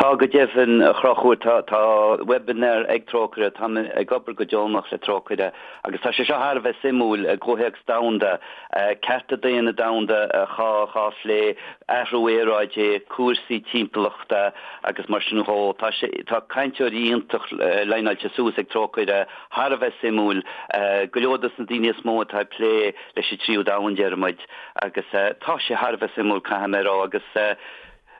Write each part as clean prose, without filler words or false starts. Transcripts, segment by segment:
Tá go deimhin, a Chonchúir, tá, tá webinar ag Trócaire, táim ag obair go deonach le Trócaire agus tá sé seo thar a bheith suimiúil i gcomhthéacs domhanda, cearta daonna domhanda dhá phlé, athrú aeráide, cúrsaí timpeallachta agus mar sin dhó. Tá sé, tá cainteoirí iontach leaineáilte suas ag Trócaire, thar a bheith suimiúil, go leor dos na daoine is mó atá ag plé leis an tríú domhan, déarfaidh muid, agus tá sé thar a bheith suimiúil, caithfidh mé a rá, agus.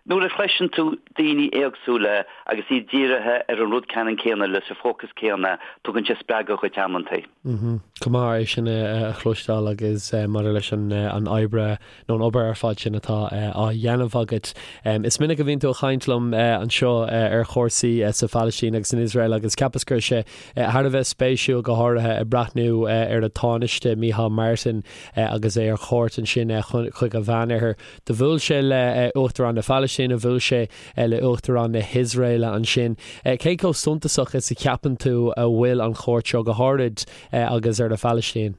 Nuair a chloiseann tú daoine éagsúla agus iad dírithe ar an rud ceannann céanna leis an fócas céanna, tugann sé spreagadh dhuit amantaí. Go maith é sin a chloisteáil agus maidir leis an oibre nó an obair ar fad sin atá á dhéanamh agat. Is minic a bhíonn tú ag caint liom anseo ar chúrsaí sa Phalaistín agus san Iosrael agus cheapas go raibh sé thar a bheith spéisiúil go háirithe ag breathnú ar an Tánaiste Micheál Martin agus é ar chuairt ansin chuig an Mheánoirthear. Do bhuail sé le Uachtarán na Palaistíne, bhuail sé le Uachtarán na hIosraeile ansin. Cé chomh suntasach is a cheapann tú a bhfuil an chuairt seo, go háirid agus ar an Phalaistín?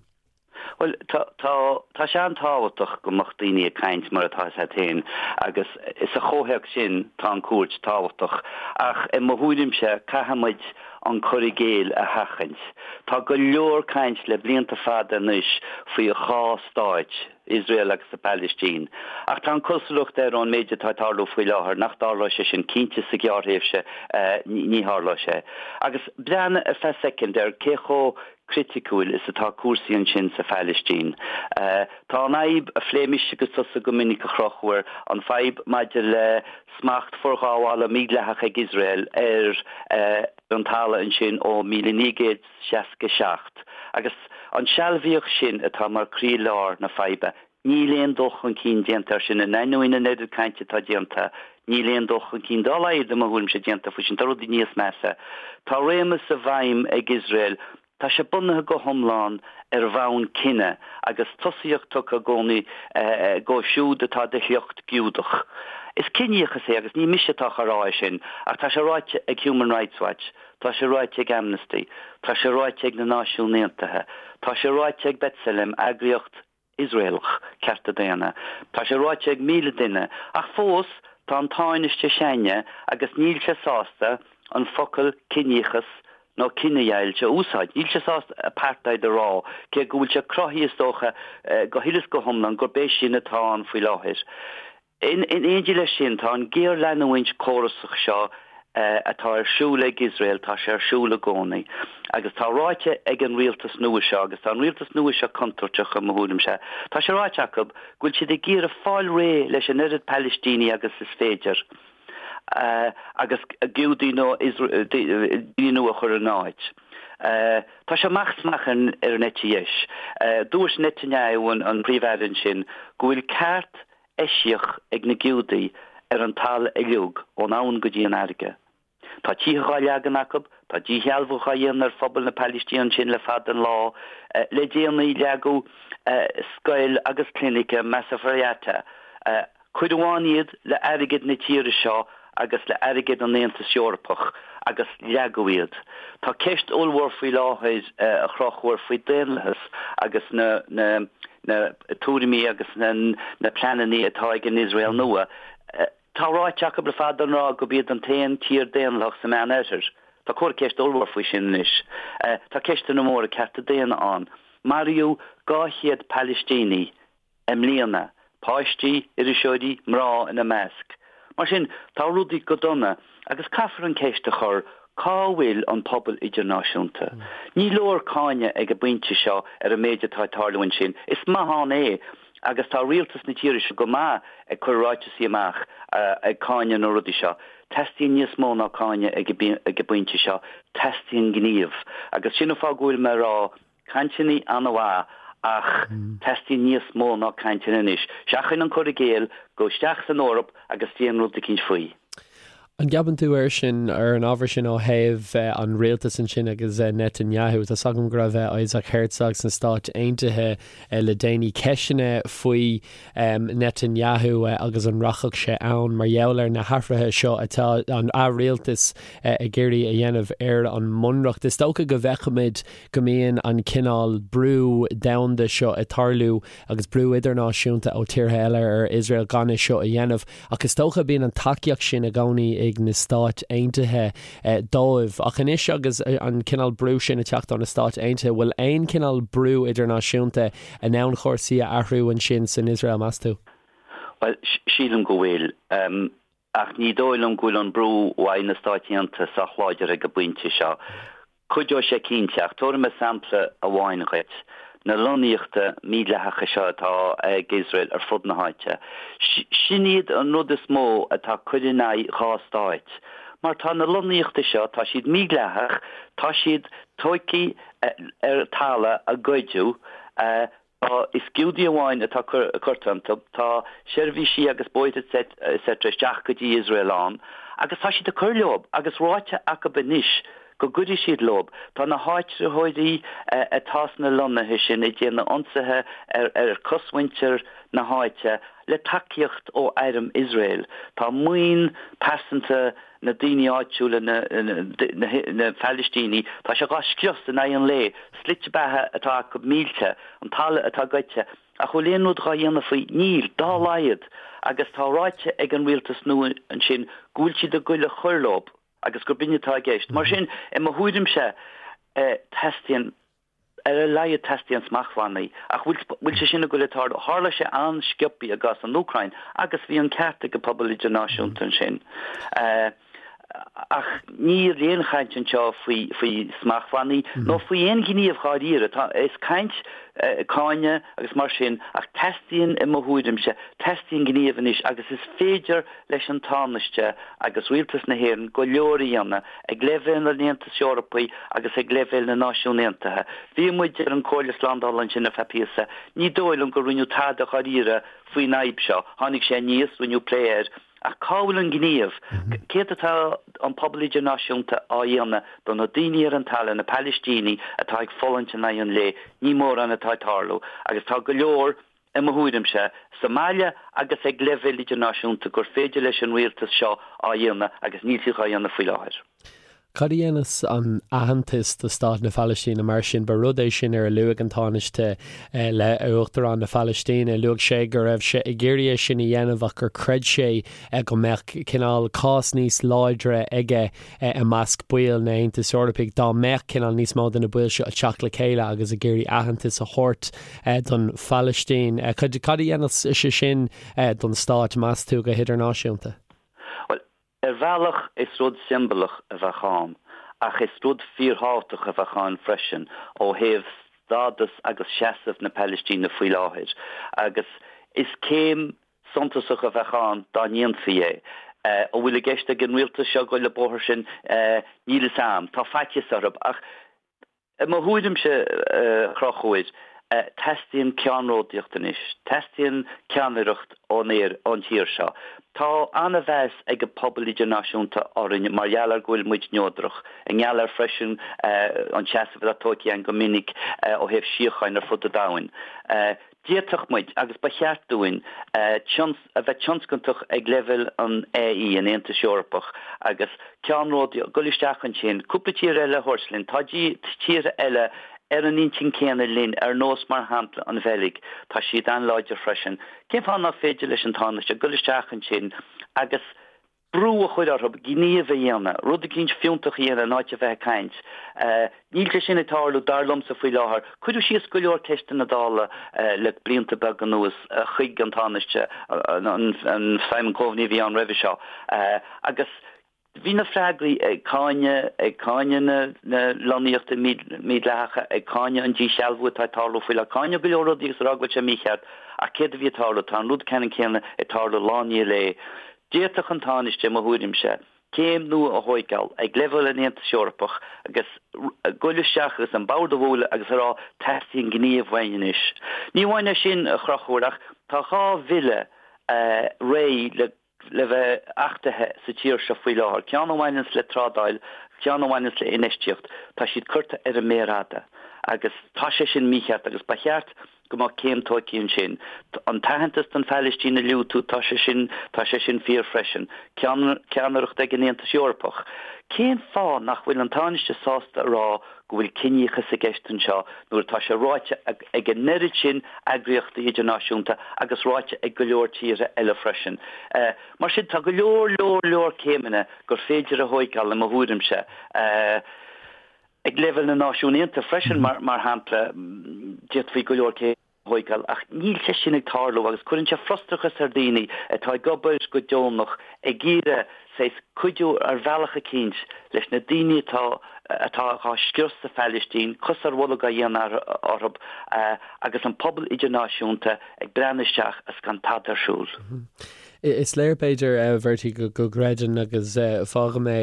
Bhuel, tá, tá, tá sé an-tábhachtach go mbeadh daoine ag caint mar atá fhios a't féin agus sa chomhthéacs sin tá an cuairt tábhachtach. Ach i mo thuairimse caithfidh muid an cur i gcéill a sheachaint. Tá go leor caint le blianta fada anois faoi dhá stáit, Iosrael agus an Phalaistín. Ach tá an cosúlacht air ón méid atá ag tarlú faoi láthair nach dtarlóidh sé sin, cinnte sa ghearrthréimhse ní tharlóidh sé. Agus breathnaigh ar feadh soicind ar cé chomh criticiúil is atá cúrsaí ansin sa Phalaistín. Tá an fhadhb, a phléigh mise agus tusa go minic a Chonchúir, an fhadhb maidir le smacht forghabhála mídhleathach ag Iosrael ar an talamh ansin ó 1900. 67, agus an sealbhaíocht sin atá mar croílár na faidhbe. Níl aon dul chun cinn déanta air sin, in ainneoin an oiread cainte atá déanta, níl aon dul chun cinn dá laghad, i mo thuairimse, déanta faoi sin. Tá rudaí níos measa. Tá réimeas i bhfeidhm ag Iosrael, tá sé bunaithe go hiomlán ar bhonn cine agus tosaíocht tugtha i gcónaí dóibh siúd atá de shliocht Giúdach. Is ciníochas é agus ní mise atá á rá é sin ach tá sé ráite ag Human Rights Watch. Tá sé ráite ag Amnesty. Tá sé ráite ag na Náisiúin Aontaithe. Tá sé ráite ag B'Tselem, eagraíocht Iosraelach cearta daonna. Tá sé ráite ag 1,000 duine. Ach fós, tá an Tánaiste s'againne agus níl sé sásta an focal ciníochas nó cinedheighilt a úsáid. Níl sé sásta apartheid a rá, cé go bhfuil sé cruthaithe, is dócha, go huile is go hiomlán gurb é sin atá ann faoi láthair. In éindí leis sin, tá an géarleanúint córasach seo atá ar siúl ag Iosrael, tá sé ar siúl i gcónaí. Agus tá ráite ag an rialtas nua seo, agus tá an rialtas nua seo contúirteach i mo thuairimse, tá sé ráite acu go bhfuil siad ag iarraidh fáil réidh leis an oiread Palaistíní agus is féidir agus Giúdaigh nó daoine nua a chur ina n-áit. Tá sé amach is amach ar an eite dheis. Dúirt Netanyahu, an Príomh-Aire ansin, go bhfuil ceart eisiach ag na Giúdaigh ar an talamh uilig ón abhainn go dtí an fharraige. Tá tithe dhá leagan acu, tá díshealbhú dhá dhéanamh ar phobal na Palaistíne ansin le fada an lá. Le déanaí leagadh scoil agus clinic i Masafer Yatta. Cuireadh ann iad le airgead na tíre seo agus le airgead an Aontais Eorpach agus leagadh iad. Tá ceist ollmhór faoi láthair a Chonchúir faoi daonlathas agus na na na tuairimí agus na na pleananna atá ag an Iosrael nua. Tá ráite acu le fada an lá gurb iad an t-aon tír daonlathach sa Meán Oirthear. Tá comhartha ceiste ollmhór faoi sin anois. Tá ceisteanna móra cearta daonna ann. Maraíodh 200 Palaistíní i mbliana, páistí, iriseoirí, mná ina measc. Mar sin, tá rudaí go dona agus caithfear an ceist a chur, cá bhfuil an pobal idirnáisiúnta? Ní leor cáineadh ag an bpointe seo ar an méid atá ag tarlú ansin. Is maith ann é agus tá rialtas na tíre seo go maith ag cur ráiteasaí amach ag cáineadh na rudaí seo. Teastaíonn níos mó ná cáineadh ag an bpointe seo, teastaíonn gníomh. Agus sin an fáth go bhfuil mé ag rá, Cainteanna an-mhaith ach teastaíonn níos mó ná cainteanna anois. Seachain an cur i gcéill, gabh isteach san Eoraip agus déan rud eicínt faoi. An gceapann tú air sin, ar an ábhar sin ó thaobh an rialtais ansin agus Netanyahu, tá 's agam go raibh Isaac Herzog sna Stáit Aontaithe le déanaí, ceisteanna faoi Netanyahu agus an rachadh sé ann mar gheall ar na hathruithe seo atá an rialtas ag iarraidh a dhéanamh ar an mbunreacht. Is dócha go bhfeicfimid go mbíonn an cineál brú domhanda seo ag tarlú agus brú idirnáisiúnta ó tíortha eile ar Iosrael gan é seo a dhéanamh ach is dócha bíonn an tacaíocht sin i gcónaí ag na Stáit Aontaithe dóibh. Ach anois agus an cineál brú sin ag teacht ó na Stáit Aontaithe, bhfuil aon chineál brú idirnáisiúnta in ann cúrsaí a athrú ansin san Iosrael, meas tú? Bhuel, sílim go bhfuil. Ach ní dóigh liom go bhfuil an brú uaidh na Stáit Aontaithe sách láidir ag an bpointe seo. Cuideoidh sé cinnte, ach tabharfaidh mé sampla amháin dhuit. Na lonnaíochta mídhleathacha seo atá ag Iosrael ar fud na háite. Sin iad an rud is mó atá ag cur in aghaidh dhá stáit. Mar tá na lonnaíochta seo, tá siad mídhleathach, tá siad tóigthe ar talamh a goideadh, Tá, is Giúdaigh amháin atá curtha iontu, tá seirbhísí agus bóithre etc isteach go dtí Iosrael ann agus tá siad ag cur leob agus ráite acub anois go gcuirfidh siad leob. Tá na háitritheoirí atá sna lonnaithe sin ag déanamh ionsaithe ar chosmhuintir na háite le tacaíocht ó airm Iosrael. Tá maoin pearsanta na daoine áitiúla, na Palaistínigh, tá sé dhá scrios in aghaidh an lae, slite beatha atá acu millte, an talamh atá goidte, ach bhfuil aon rud dhá dhéanamh faoi? Níl, dá laghad! Agus tá ráite ag an rialtas nua ansin go bhfuil siad ag goil a chur leob agus gurb in atá i gceist. Mar sin, i mo thuairimse, teastaíonn. Ar a laghad teastaíonn smachtbhannaí. Ach bhfuil bhfuil sé sin ag goil ag tarlú? Tharla sé an-sciobthaí i gcás an Úcráin agus bhí an ceart ag an pobal idirnáisiúnta ansin. Ach níl aon chaint anseo faoi faoi smachtbhannaí nó faoi aon ghníomh dháiríre. Tá is caint, cáineadh agus mar sin ach teastaíonn i mo thuairimse, teastaíonn gníomh anois agus is féidir leis an Tánaiste agus Rialtas na hÉireann go leor a dhéanamh ag leibhéal an Aontais Eorpaigh agus ag leibhéal na Náisiún Aontaithe. Bhí muid ar an Comhairle Slándála ansin ar feadh píosa. Ní dóigh liom gur rinneadh tada dháiríre faoin fhadhb seo. Tháinig sé aníos, rinneadh plé air, ach cá bhfuil an gníomh? Céard atá an pobal idirnáisiúnta á dhéanamh do na daoine ar an talamh, na Palaistínigh atá ag fulaingt in aghaidh an lae? Ní mórán atá ag tarlú agus tá go leor i mo thuairimse, sa mbaile agus ag leibhéal idirnáisiúnta gur féidir leis an rialtas seo á dhéanamh agus níl siad dhá dhéanamh faoi láthair. Cad a dhéanfas an aitheantas do Stát na Palaistíne mar sin? Ba rud é sin ar a luaigh an Tánaiste le Uachtarán na Palaistíne. Luaigh sé go raibh sé ag iarraidh é sin a dhéanamh ach gur chreid sé go mbeadh cineál cás níos láidre aige i measc baill na Aontais Eorpaigh dá mbeadh cineál níos mó de na baill seo ag teacht le chéile agus ag iarraidh aitheantas a thabhairt don Phalaistín. Cad a dhéanfadh sé sin don stát, meas tú, go hidirnáisiúnta? Bhuel, ar bhealach is rud siombalach a bheadh ann, ach is rud fíorthábhachtach a bheadh ann freisin ó thaobh stádas agus seasamh na Palaistíne faoi láthair. Agus is céim suntasach a bheadh ann dá ndéanfaí é. An bhfuil i gceist ag an rialtas seo goil an bóthar sin? Níl fhios a'm. Tá faitíos orthu. Ach i mo thuairimse, a Chonchúir, teastaíonn ceannródaíocht anois. Teastaíonn ceannaireacht ón ón tír seo. Tá an-mheas ag an pobal idirnáisiúnta orainn mar gheall ar go bhfuil muid neodrach, i ngeall ar freisin an seasamh atá tógtha againn go minic ó thaobh síocháin ar fud an domhain. D'fhéadfadh muid, agus ba cheart dúinn, a bheith tionscantach ag leibhéal an AE, an Aontais Eorpach, agus ceannródaíocht, dul isteach ansin, cúpla tír eile a thabhairt linn. Tá tíortha eile ar an intinn céanna linn, ar nós, mar shampla, an Bheilg, tá siad an-láidir freisin. Cén fáth nach féidir leis an Tánaiste dul isteach ansin agus brú a chur orthu gníomh a dhéanamh, rud eicínt fiúntach a dhéanamh in áit a bheith ag caint. Níl sé sin ag tarlú, dar liomsa, faoi láthair. Cuireadh síos go leor ceisteanna Dála le blianta beaga anuas chuig an Tánaiste, an Simon Coveney a bhí ann roimhe seo, agus bhí na freagraí ag cáineadh, ag cáineadh na lonnaíochta mídhleathacha, ag cáineadh an díshealbhú atá ag tarlú faoi láthair, cáineadh go leor rudaí agus a rá go bhfuil sé mícheart, ach céard a bhí ag tarlú? Tá an rud ceannann céanna ag tarlú lá i ndiaidh lae. D'fhéadfadh an Tánaiste, i mo thuairimse, céim nua a thóigeáil ag leibhéal an Aontais Eorpach agus goil isteach agus an bord a bhualadh agus a rá teastaíonn gníomh uainn anois. Ní amháin é sin, a Chonchúir, ach tá 2 bhille réidh le le bheith achtaithe sa tír seo faoi láthair, ceann a bhaineanns le trádáil, ceann a bhaineanns le infheistíocht. Tá siad curtha ar an méar fhada agus tá sé sin mícheart agus ba cheart. go mbeadh céim tóigthe ansin. An t-aitheantas don Phalaistín a luaigh tú, tá sé sin, tá sé sin fíor freisin. Ceannaireacht ag an Aontas Eorpach. Cén fáth nach bhfuil an Tánaiste sásta a rá go bhfuil ciníochas i gceist anseo nuair atá sé ráite ag an oiread sin eagraíochtaí idirnáisiúnta agus ráite ag go leor tíortha eile freisin. Mar sin, tá go leor, leor, leor céimeanna gur féidir a thóigeáil i mo thuairimse. Ag leibhéal na Náisiún Aontaithe freisin, mar shampla, d'fhéadfaí go leor céimeanna a thóigeáil ach níl sé sin ag tarlú agus cuireann sé frustrachas ar dhaoine atá ag obair go deonach ag iarraidh saghas cuidiú ar bhealach eicínt leis na daoine atá atá á scrios sa Phalaistín, cos ar bholg á dhéanamh orthu agus an pobal idirnáisiúnta ag breathnú isteach is gan tada ar siúl. Is léir, b'fhéidir, a Bhertie, go gcreideann agus fágfaidh mé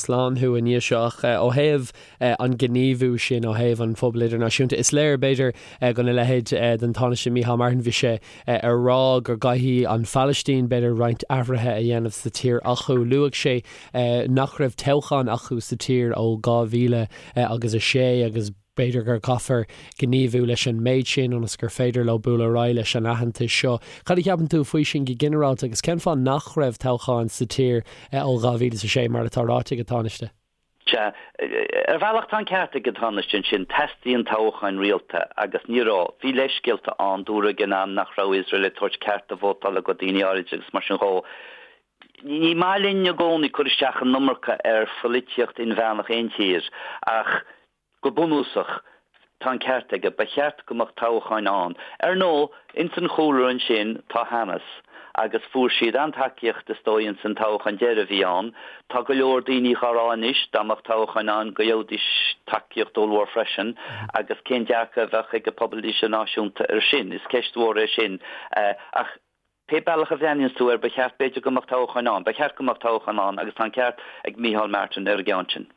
slán thú i ndiaidh seo ach ó thaobh an gníomhú sin ó thaobh an phobail idirnáisiúnta, is léir, b'fhéidir, gona leithéid den Tánaiste Micheál Martin, bhí sé ag rá go gcaithfidh an Phalaistín, b'fhéidir, roinnt athruithe a dhéanamh sa tír acu. Luaigh sé nach raibh toghchán acu sa tír ó 2000 agus 6 agus b'fhéidir gur caithfear gníomhú leis an méid sin ionas gur féidir leo bualadh ar aghaidh leis an aitheantas seo. Cad a cheapann tú faoi sin go ginearálta agus cén fáth nach raibh toghchán sa tír ó 2006 mar atá ráite ag an Tánaiste? Sea, ar bhealach tá an ceart ag an Tánaiste ansin, teastaíonn toghcháin rialta agus ní raibh. Bhí leithscéalta ann, dúradh ag an am nach raibh Iosrael ag tabhairt cearta vótála go daoine áirid agus mar sin dhó. Ní maith linn i gcónaí cur isteach an iomarca ar pholaitíocht inmheánach aon tír ach go bunúsach tá an ceart aige, ba cheart go mbeadh toghcháin ann. Ar ndóigh, ins an chúlra ansin tá Hamas agus fuair siad an-tacaíocht is dóigh ins an toghchán deiridh a bhí ann. Tá go leor daoine dhá rá anois dá mbeadh toghcháin ann go gheobhaidís tacaíocht ollmhór freisin agus cén dearcadh a bheadh ag an pobal idirnáisiúnta ar sin? Is ceist mhór é sin ach Pé bealach a bhreathnaíonns tú air, ba cheart, b'fhéidir, go mbeadh toghcháin ann. Ba cheart go mbeadh toghcháin ann agus tá an ceart ag Micheál Martin ar an gceann sin.